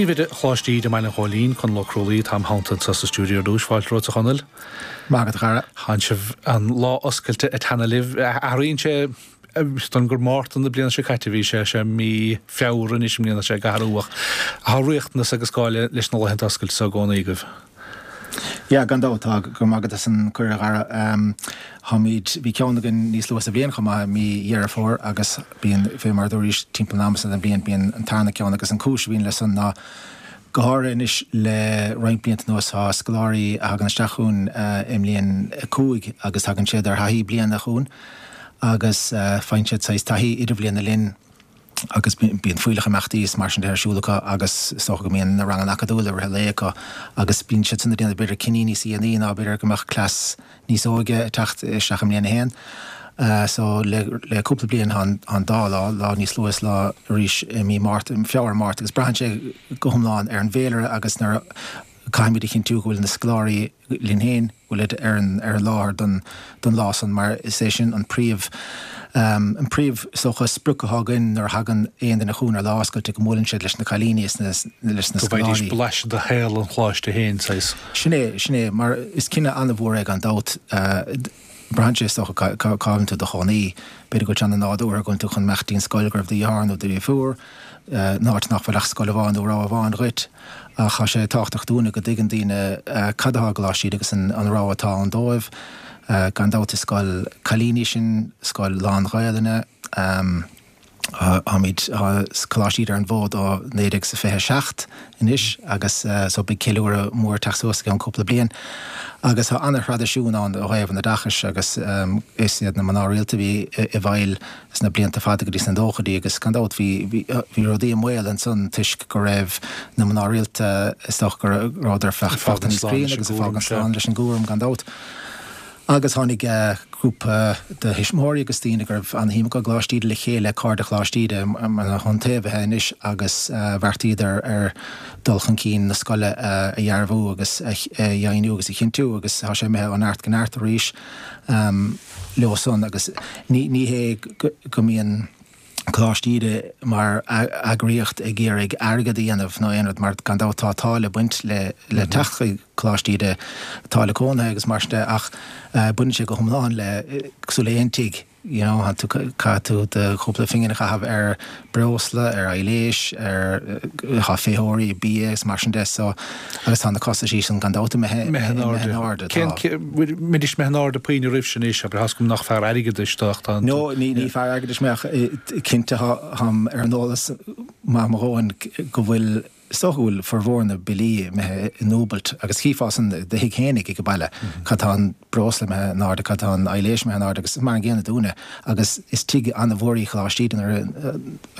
Príomhoide Choláiste Íde i mBaile an Ghóilín, Conall Ó Crualaoí, atá im theannta anseo sa stiúideo ar dtús. Fáilte romhat a Chonaill. Maith agat a chara. Tánn sibh an lá oscailte ag teannadh libh. Athraíonn sé don gur Márta na bliana seo caite a bhí sé, sé mí Feabhra anois i mbliana sé ag athrú ach tá riachtanas agus gá leis na laethanta oscailte so i gcónaí agaibh. Yeah, gan dabht tá. Go raibh maith agat as an cuireadh a Dhara. Táimid, bhí ceann againn níos luaithe sa bhliain chomh maith, mí Dheireadh Fómhair agus bíonn, fé mar a dúraís, timpeall an ama san den bhliain bíonn an tarna ceann agus an cúis a bhíonn le san ná go háirithe anois le roinnt blianta anuas tá scoláirí a thagann isteach chugainn i mbliain 5 agus tagann siad ar thaithí bliana chugainn agus faigheann siad saghas taithí idirbhliana linn. agus bíonn fuílleach imeachtaí is mar sin de ar siúl acu agus is dócha go mbíonn na ranganna acadúla i rith an lae acu agus bíonn siad san ag déanamh b'fhéidir cinní níos dhéanaí ná b'fhéidir go mbeadh cleas níos óige ag teacht isteach i mbliain a haon. So le le cúpla bliain tá an dá lá, lá níos luaithe is lá arís i mí Márta, Feabhra, Márta agus braitheann sé go hiomlán ar an bhféilire agus nuair a caithfimid a chinntiú go bhfuil na scoláirí linn féin, go bhfuilid ar an ar an láthair don don lá san mar is é sin an príomh an príomh is dócha sprioc atá againn nuair a thagann aon duine chugainn ar lá oscailte go mbuaileann siad leis na cailíní is na leis na Go bhfaighidís scoláirí. blaiseadh de shaol an choláiste féin, saghas. Sin é, sin é, mar is cinneadh an-mhór é gan dabht. Braitheann sé is dócha cá bhfuil tú i do chónaí. B'fhéidir go bhfuil sé an-nádúrtha go bhfuil tú chun imeacht dtí'n scoil go raibh do dheartháir nó do dheirfiúr, in áit nach bhfuil ach scoil amháin nó rogha amháin dhuit. Ach tá sé tábhachtach dúinne go dtuigeann daoine cad atá i gColáiste Íde agus an rogha atá ann dóibh. Gan dabht is scoil cailíní sinn, scoil lán-Ghaelainne. Táimid, tá Coláiste Íde ar an bhfód ó 1927 anois agus so beidh ceiliúradh mór ag teacht suas i gceann cúpla bliain. Agus tá ana-thraidisiún ann ó thaobh an oideachais agus is iad na mná rialta a bhí i bhfeighil sna blianta fada go dtí sna nóchaidí agus gan dabht bhí, bhí rudaí i mbaol ansan toisc go raibh na mná rialta is dócha go rabhadar fágtha níos críonna agus ag fágaint slán leis an gcúram gan dabht. Agus tháinig grúpa de thuismitheoirí agus daoine go raibh an-shuim acu i gColáiste Íde le chéile, Cairde Choláiste Íde, mar na hiontaobhaithe anois agus bheartaíodar ar dul chun cinn na scoile a dhearbhú agus a dheimhniú agus a chinntiú agus tá sé imithe ó neart go neart arís leo san agus ní hé go mbíonn Coláiste Íde mar eagraíocht ag iarraidh airgead a dhéanamh nó aon rud mar gan dabht tá táille ag baint le le teacht chuig Coláiste Íde, táille cónaithe agus mar sin de ach baineann sé go hiomlán le cosúil le aon tigh you know tá tú caithfidh tú do chúpla phingin a chaitheamh ar breosla, ar aibhléis, ar tá féitheoirí, bia agus mar sin de so agus tá na costaisí sin gan dabht imithe imithe in airde. Tá. Cén, mbeidís imithe in airde puinn roimh sin anois, abair, tá's agam nach fear airgeadais tú ach tá an. No, ní ní fear airgeadais mé ach cinnte táim ar an eolas maith mo dhóthain go bhfuil, is dócha go bhfuil formhór na billí imithe i ndúbailt agus chífeá san i do thigh fhéinig ag an baile cad tá an breosla imithe in airde, cad tá an aibhléis imithe in airde agus mar an gcéanna dúinne agus is tigh an-mhór í Choláiste Íde nuair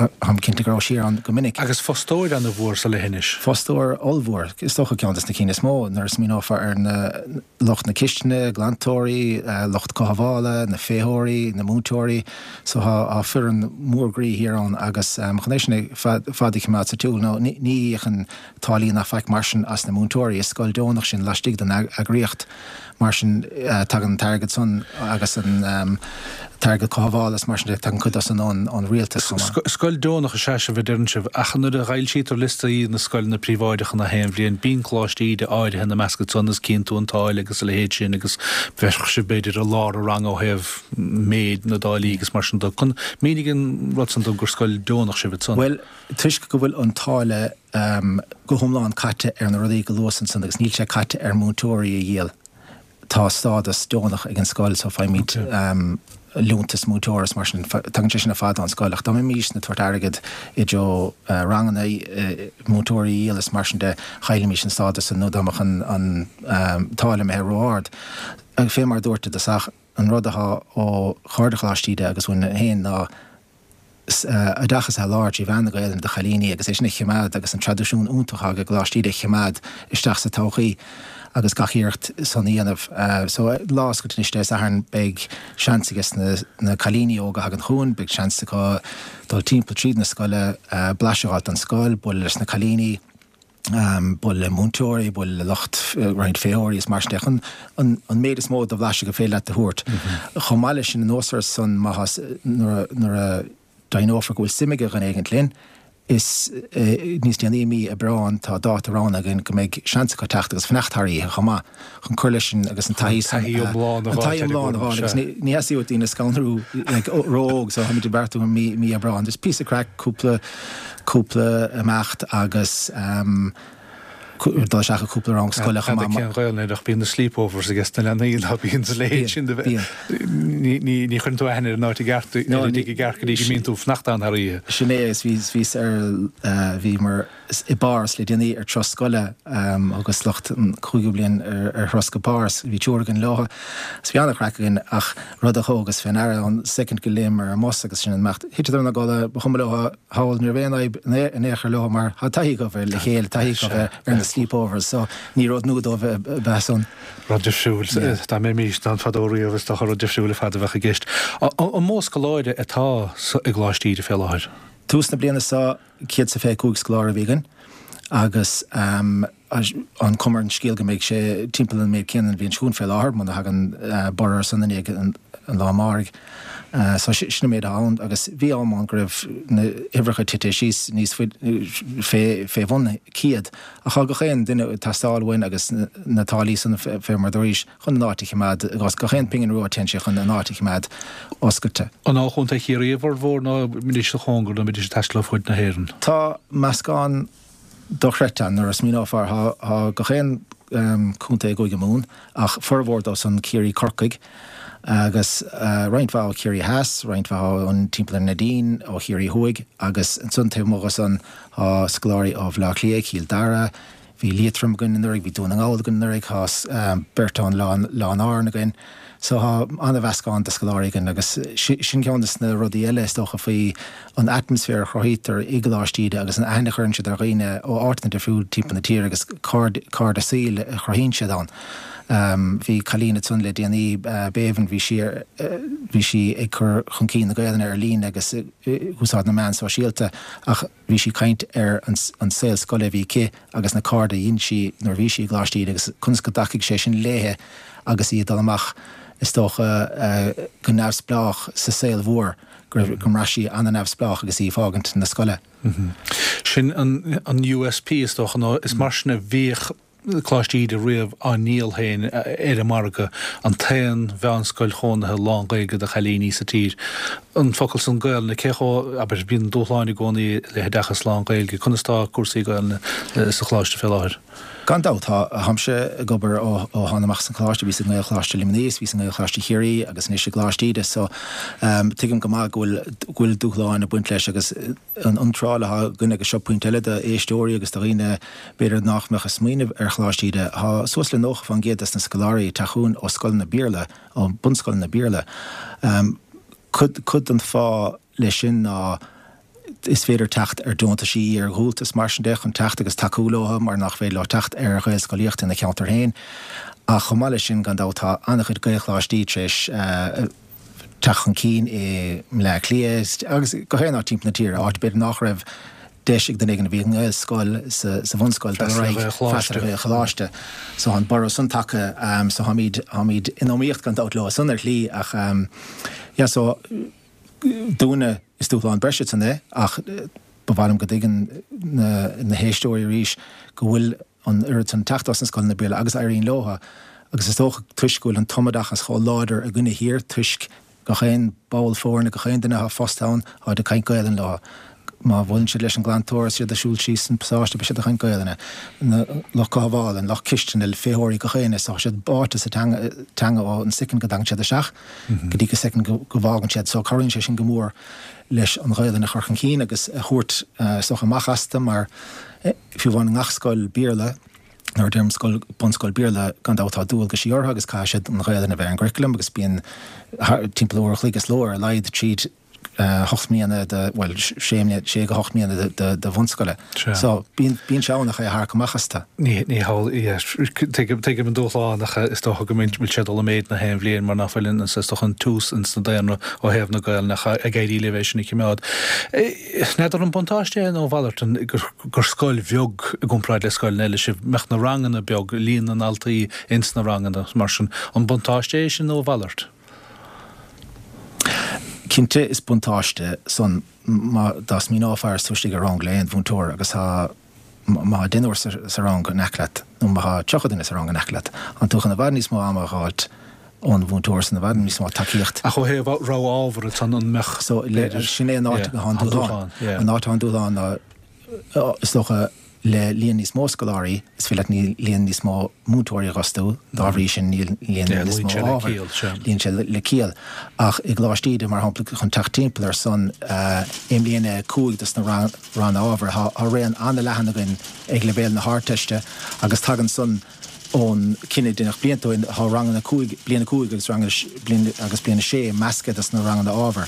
a táim cinnte go rabhais thiar ann go minic. Agus fostóir an-mhór sa leithinis. Fostóir ollmhór, is dócha ceann des na cinn is mó nuair a smaoineofá ar na lucht na cistine, glantóirí, lucht cothabhála, na féitheoirí, na múinteoirí. So tá foireann mhór groí thiar ann agus chun é sin fad a choimeád sa tsiúl nó ní íocann táillí ná faic mar sin as na múinteoirí. Is scoil deonach sin laistigh den eagraíocht. Mar sin tagann an t-airgead san agus an t-airgead cothabhála is mar sin de, tagann cuid dó san ón rialtas chomh maith. Scoil deonach is ea sibh a deireann sibh, ach nuair a fhoilsítear liostaí na scoileanna príobháideacha na haon bhliain, bíonn Coláiste Íde áirithe ina measc ansan is cíonn tú an táille agus a leithéid sin agus bheadh sibh b'fhéidir i lár an ranga ó thaobh méid na dtáillí agus mar sin de. Mínigh an rud san dom gur scoil deonach sibh ansan. Bhuel, toisc go bhfuil an táille go hiomlán caite ar na rudaí go luas ansan agus níl sé caite ar múinteoirí a dhíol. Tá stádas deonach ag an scoil so faighimid liúntas múinteora is mar sin, tagann sé sin ar fad ón scoil ach dá mbeimis ag tabhairt airgead i dtreo ranganna, múinteoirí a dhíol is mar sin de, chaillfimis an stádas san nó dá mbeadh an táille imithe ró-ard. Fé mar a dúirt i dtosach, an rud atá ó Chairde Choláiste Íde agus uainn féin ná, oideachas a sholáthar trí mheán na Gaelainne do chailíní agus é sin a choimeád agus an traidisiún iontach atá ag Coláiste Íde a choimeád isteach sa todhchaí agus gach iarracht san a dhéanamh. So lá oscailte anois Dé Sathairn beidh seans aige na cailíní óga a thagann chugainn, beidh seans acu dul timpeall tríd na scoile, blaiseadh a fháilt den scoil, bualadh leis na cailíní. bualadh le múinteoirí, bualadh le lucht roinnt féitheoirí is mar sin de, chun an méid is mó de bhlaiseadh gur féidir leat a thabhairt. Chomh maith leis sin, anuas air san, má tá, nuair a deimhneofar go bhfuil suim ag dhuine éigint linn, Is níos déanaí i mí Aibreáin tá dáta roghnaithe againn go mbeidh seans acu teacht agus fanacht thar oíche chomh maith chun cur leis an agus an taithí san An taithí iomlán a an taithí iomlán a fháil agus ní ní theastaíonn uait daoine a scanrú like ró-óg so táimid ag beartú i mí mí Aibreáin. Just píosa craic, cúpla cúpla imeacht agus ehm dul isteach i gcúpla rang scoile chomh maith. Cén Ghaelainn air ach bíonn na sleepovers ages na leanaí ná bíonn sa leithéid sin de bheith. Ní chuireann tú aithne ar an áit i gceart, ar an dtigh i gceart go dtí go mbíonn tú ag fanacht ann thar oíche. Sin é agus bhíos ar, bhíomar i bPáras le déanaí ar turas scoile agus lucht an chúigiú bliain ar thuras go Páras. Bhí triúr againn leo agus bhí an-chraic againn ach rud a thógas fé ndeara ón soicind go léimeamar ar an mbus agus sin an imeacht. Thiteadar ina gcodladh, ba chuma leo. Thall, ní raibh aon fhadhb in aon chor leo mar tá taithí acu ar le chéile, taithí acu ar na sleepovers so ní rud nua dóibh ab ea san. Rud difriúil, dá mbeimis ann fadó riamh is dócha rud difriúil ar fad a bheadh i gceist. An mó scoláire atá i gColáiste Íde fé láthair? Tús na bliana seo 125 scoláire a bhí againn agus an chuma ar an scéal go mbeidh sé timpeall an méid céanna an bhliain seo chugainn fé láthair, muna thagann borradh ar son i ndiaidh an lá amáirigh. So sin an méid atá ann agus bhí am ann go raibh na huimhreacha tite síos níos faide, fé bhun 100 ach tá gach aon duine ag teastáil uainn agus na táillí san fé mar dúraís chun an áit a choimeád, gach aon pingin rua téann sé chun an áit a choimeád oscailte. An ó Chontae Chiarraí a bhformhór nó an mbeidís sa chóngar nó an mbeidís ag taisteal ó fud na hÉireann? Tá meascán dochreidte ann nuair a smaoineofar. Tá gach aon chontae i gCúige Mumhan ach formhór dóibh san Ciarraí Corcaigh agus roinnt mhaith ó Chiarraí Theas, roinnt mhaith ón timpeall ar Neidín, ó Chiarraí Thuaidh agus ansan taobh amuigh de san tá scoláirí ó Bhaile Átha Cliath, Cill Dara, Bhí Liatroim againn anuraidh, bhí Dún na nGall againn anuraidh, tá beirt ón Oileán Árann againn. So tá an-mheascán de scoláirí againn agus sin ceann de na rudaí eile is dócha faoi an atmaisféar a chruthaítear i gColáiste Íde agus an aithne a chuireann siad ar dhaoine ó áiteanna difriúil timpeall na tíre agus cairde saoil a chruthaíonn siad ann. Bhí cailín ansan le déanaí, Béibhinn, bhí sí ar, bhí sí ag cur chun cinn na Gaelainne ar líne agus ag úsáid na meán sóisialta ach, Bhí sí ag caint ar an saol scoile a bhí aici agus na cairde a dhein sí nuair a bhí sí i gColáiste Íde agus conas go dtacaigh sé sin léithe agus í ag dul amach, is dócha, go neamhspleách sa saol mhór, go raibh, go mbraith sí an-neamhspleách agus í ag fágaint na scoile. Sin an USP, is dócha, nó is mar sin a bhíodh Coláiste Íde riamh á ndíol féin ar an margadh, an t-aon mheánscoil chónaithe lán-Ghaeilge do chailíní sa tír. An focal san Gaelainne, cé chomh, abair, bíonn dúshláin i gcónaí le hoideachas lán-Ghaeilge, conas tá cúrsaí Gaelainne sa Choláiste fé láthair? Gan dabht, tá. Táimse ag obair ó thána amach as an Choláiste, bhíos i nGaelcholáiste Luimnigh, is bhíos i nGaelcholáiste Chiarraí agus anois i gColáiste Íde, so tuigim go maith go bhfuil, go bhfuil dúshláin ag baint leis agus, an iontráil atá againn agus seo pointe eile d'éisteoirí agus do dhaoine b'fhéidir nach mbeadh ag smaoineamh ar Choláiste Íde, tá suas le 90% des na scoláirí ag teacht chugainn ó scoileanna Béarla, ó bunscoileanna Béarla. Cuid, cuid den fáth leis sin ná is féidir teacht ar deontaisí iar-dhúltais mar sin de chun teacht agus tacú leo mar nach féidir leo teacht ar Ghaelscolaíocht ina cheantar féin. Ach chomh maith leis sin, gan dabht, tá an-chuid Gaelcholáistí tar éis, teacht chun cinn i mBleá Cliath agus gach aon áit timpeall na tíre, áit b'fhéidir nach raibh deis ag duine éigin a bhí i nGaelscoil sa bhunscoil dul ar aghaidh freastal ar Ghaelcholáiste. So tá an borradh san tagtha so táimid, táimid in iomaíocht gan dabht leo san ar shlí ach yeah so dúinne is dúshlán breise san é ach ba mhaith liom go dtuigeann na, na héisteoirí arís go bhfuil an oiread san teacht as na scoileanna Béarla agus éiríonn leo agus is dócha toisc go bhfuil an tumoideachas chomh láidir againne thiar toisc gach aon ball foirne, gach aon duine atá fostaithe ann, táid ag caint Gaelainn leo. Má bhuaileann siad leis an glantóir is iad ag siúl síos an pasáiste beidh siad ag caint Gaelainne. Na lucht cothabhála, an lucht cistine, féitheoirí, gach éinne, tá siad báite sa teanga, teanga ó an soicind go dtagann siad isteach go dtí go soicind go bhfágann siad. So cabhraíonn sé sin go mór leis an Ghaelainn a chur chun cinn agus a thabhairt is dócha amach astu mar Fiú amháin i ngach scoil Béarla, nuair a deirim scoil, bunscoil Béarla, gan dabht tá dualgaisí orthu agus caithfidh siad an Ghaelainn a bheith ar an gcurriculum agus bíonn timpeall uair a chloig sa ló ar a laghad tríd hocht mbliana de, bhuel, sé mbliana, sé go hocht mbliana de, de bhunscoile. So, bíonn, bíonn sé ann ach é a tharrac amach astu. Ní, ní hamhlaidh, yeah, tuigim, tuigim an dúshlán ach is dócha go bhfuil sé ag dul i méid na haon bhliain mar nach bhfuil an, is dócha an tiús ins na daonra ó thaobh na Gaelainne ach ag éirí libh é sin a chimeád. N'fheadar an buntáiste é nó a mhalairt gur scoil bheag i gcomparáid le scoileanna eile sibh, mbeadh na ranganna beag, líon na ndaltaí ins na ranganna mar sin. An buntáiste é sin nó a mhalairt? Cinnte is buntáiste san. má dá smaoineofá is tú istigh i rang le aon mhúinteoir agus tá má tá deichniúr sa rang in aice leat nó má tá 30 duine sa rang in aice leat, tá tú chun i bhfad níos mó ama a dh'fháilt ón mhúinteoir san, i bhfad níos mó tacaíocht. Ach ó thaobh rogha ábhar ansan an mbeadh, So, sin é an áit atá an dúshlán. An áit atá an dúshlán ná, is dócha, le líon níos mó scoláirí, is féidir leat líon níos mó múinteoirí a dh'fhostú, dá bhrí sin níl líon níos mó ábhar. Luíonn sé le ciall. Ach i gColáiste Íde, mar shampla, chun teacht timpeall ar san, i mbliain a 5 dos na ranna ábhair, tá raon an-leathan againn ag leibhéal na hArdteiste agus tagann san ón cinneadh a deineadh blianta ó shin, tá ranganna 5, bliain 5 agus ranganna bliain agus bliain 6 measctha dos na ranganna ábhair.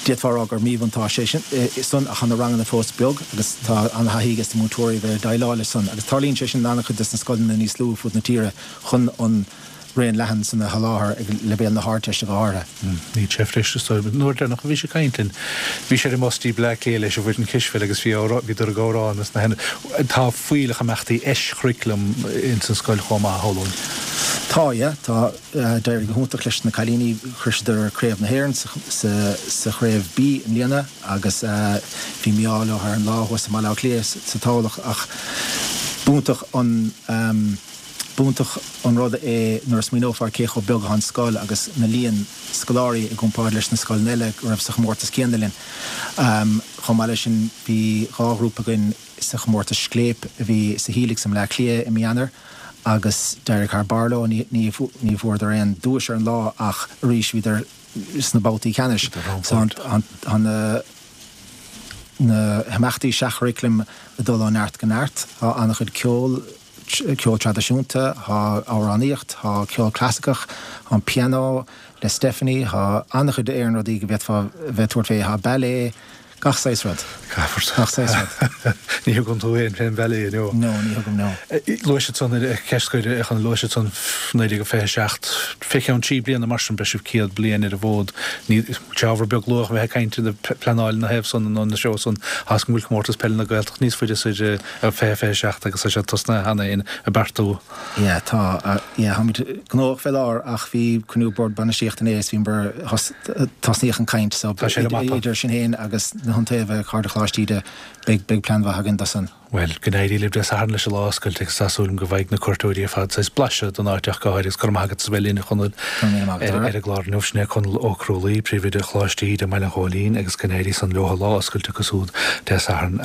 D'fhéadfá a rá gur míbhuntáiste é sin san ach tá na ranganna fós beag agus tá an-thaithí ages na múinteoirí a bheith ag déileáil leis san agus tarlaíonn sé sin in an-chuid des na scoileanna níos lú fud na tíre chun an raon leathan san a sholáthar ag leibhéal na hArdteiste go háirithe. Níl sé freisin is dóigh. An uair deireanach a bhí sé ag caint linn, bhí sé ar an mbus dtí Bleá Cliath leis an bhfoireann cispheile agus bhí bhíodar ag amhrán is na Tá fuílleach imeachtaí eischurriculum ins an scoil chomh maith, a shamhlóinn. Tá, yeah. Tá. D'éirigh go hiontach leis na cailíní. Shroiseadar Craobh na hÉireann sa Chraobh B i mbliana agus bhí mí-ádh leo ar an lá thuas i mBaile Átha Cliath sa Tamhlacht ach b'iontach an B'iontach an rud é nuair a smaoineofá ar cé chomh beag atá an scoil agus na líon scoláirí i gcomparáid leis na scoileanna eile go raibh sa chomórtas céanna linn. Chomh maith leis sin bhí dhá ghrúpa againn sa chomórtas Scléip a bhí sa Helix i mBleá Cliath i mí Eanáir agus d'éirigh thar barr leo. Ní bhfuaireadar aon duais ar an lá ach arís bhíodar sna babhtaí ceannais. So tá na na himeachtaí seach-churaclaim ag dul ó neart go neart. Tá an-chuid ceol. ceol traidisiúnta, tá amhránaíocht, tá ceol clasaiceach, tá an pianó le Stephanie, tá an-chuid aon rudaí go bhféadfá bheith ag tabhairt fé, tá ballet, gach saghas rud. Gach saghas rud. Ní thugann tú féin fén bhallet, no? No, ní thugaim, no. Luaigh siad san, ceist scoir, a Chonaill, luaigh siad san 1927, fé cheann trí bliana mar sin beidh sibh 100 bliain ar an bhfód. Ní, sé ábhar beag luath a bheith ag caint ina pleanáil ina thaobh san nó ina threo san, tá 'fhios agam go bhfuil Comórtas Peile na Gaeltachta níos faide soir 2027 agus tá sé tosnaithe cheana féin ag beartú. Yeah, tá, yeah, táimid gnóthach fé láthair ach bhí cruinniú Bord Bainistíochta inné is bhíomar, tosnaíodh an caint so Tá sé ar an mapa. idir sinn féin agus na hIontaobhaithe, Cairde Choláiste Íde, beidh, beidh plean mhaith againn do san. Bhuel, go n-éirí libh Dé Sathairn leis an lá oscailte agus tá súil agam go bhfaighidh na cuairteoirí ar fad saghas blaiseadh den áit ach go háirithe agus go raibh maith agat as a bheith linn a Chonaill Go raibh míle maith agat, ar an gclár inniu. Sin é Conall Ó Crualaoi, Príomhoide Choláiste Íde i mBaile an Ghóilín agus go n-éirí san leo an lá oscailte acu siúd Dé Sathairn.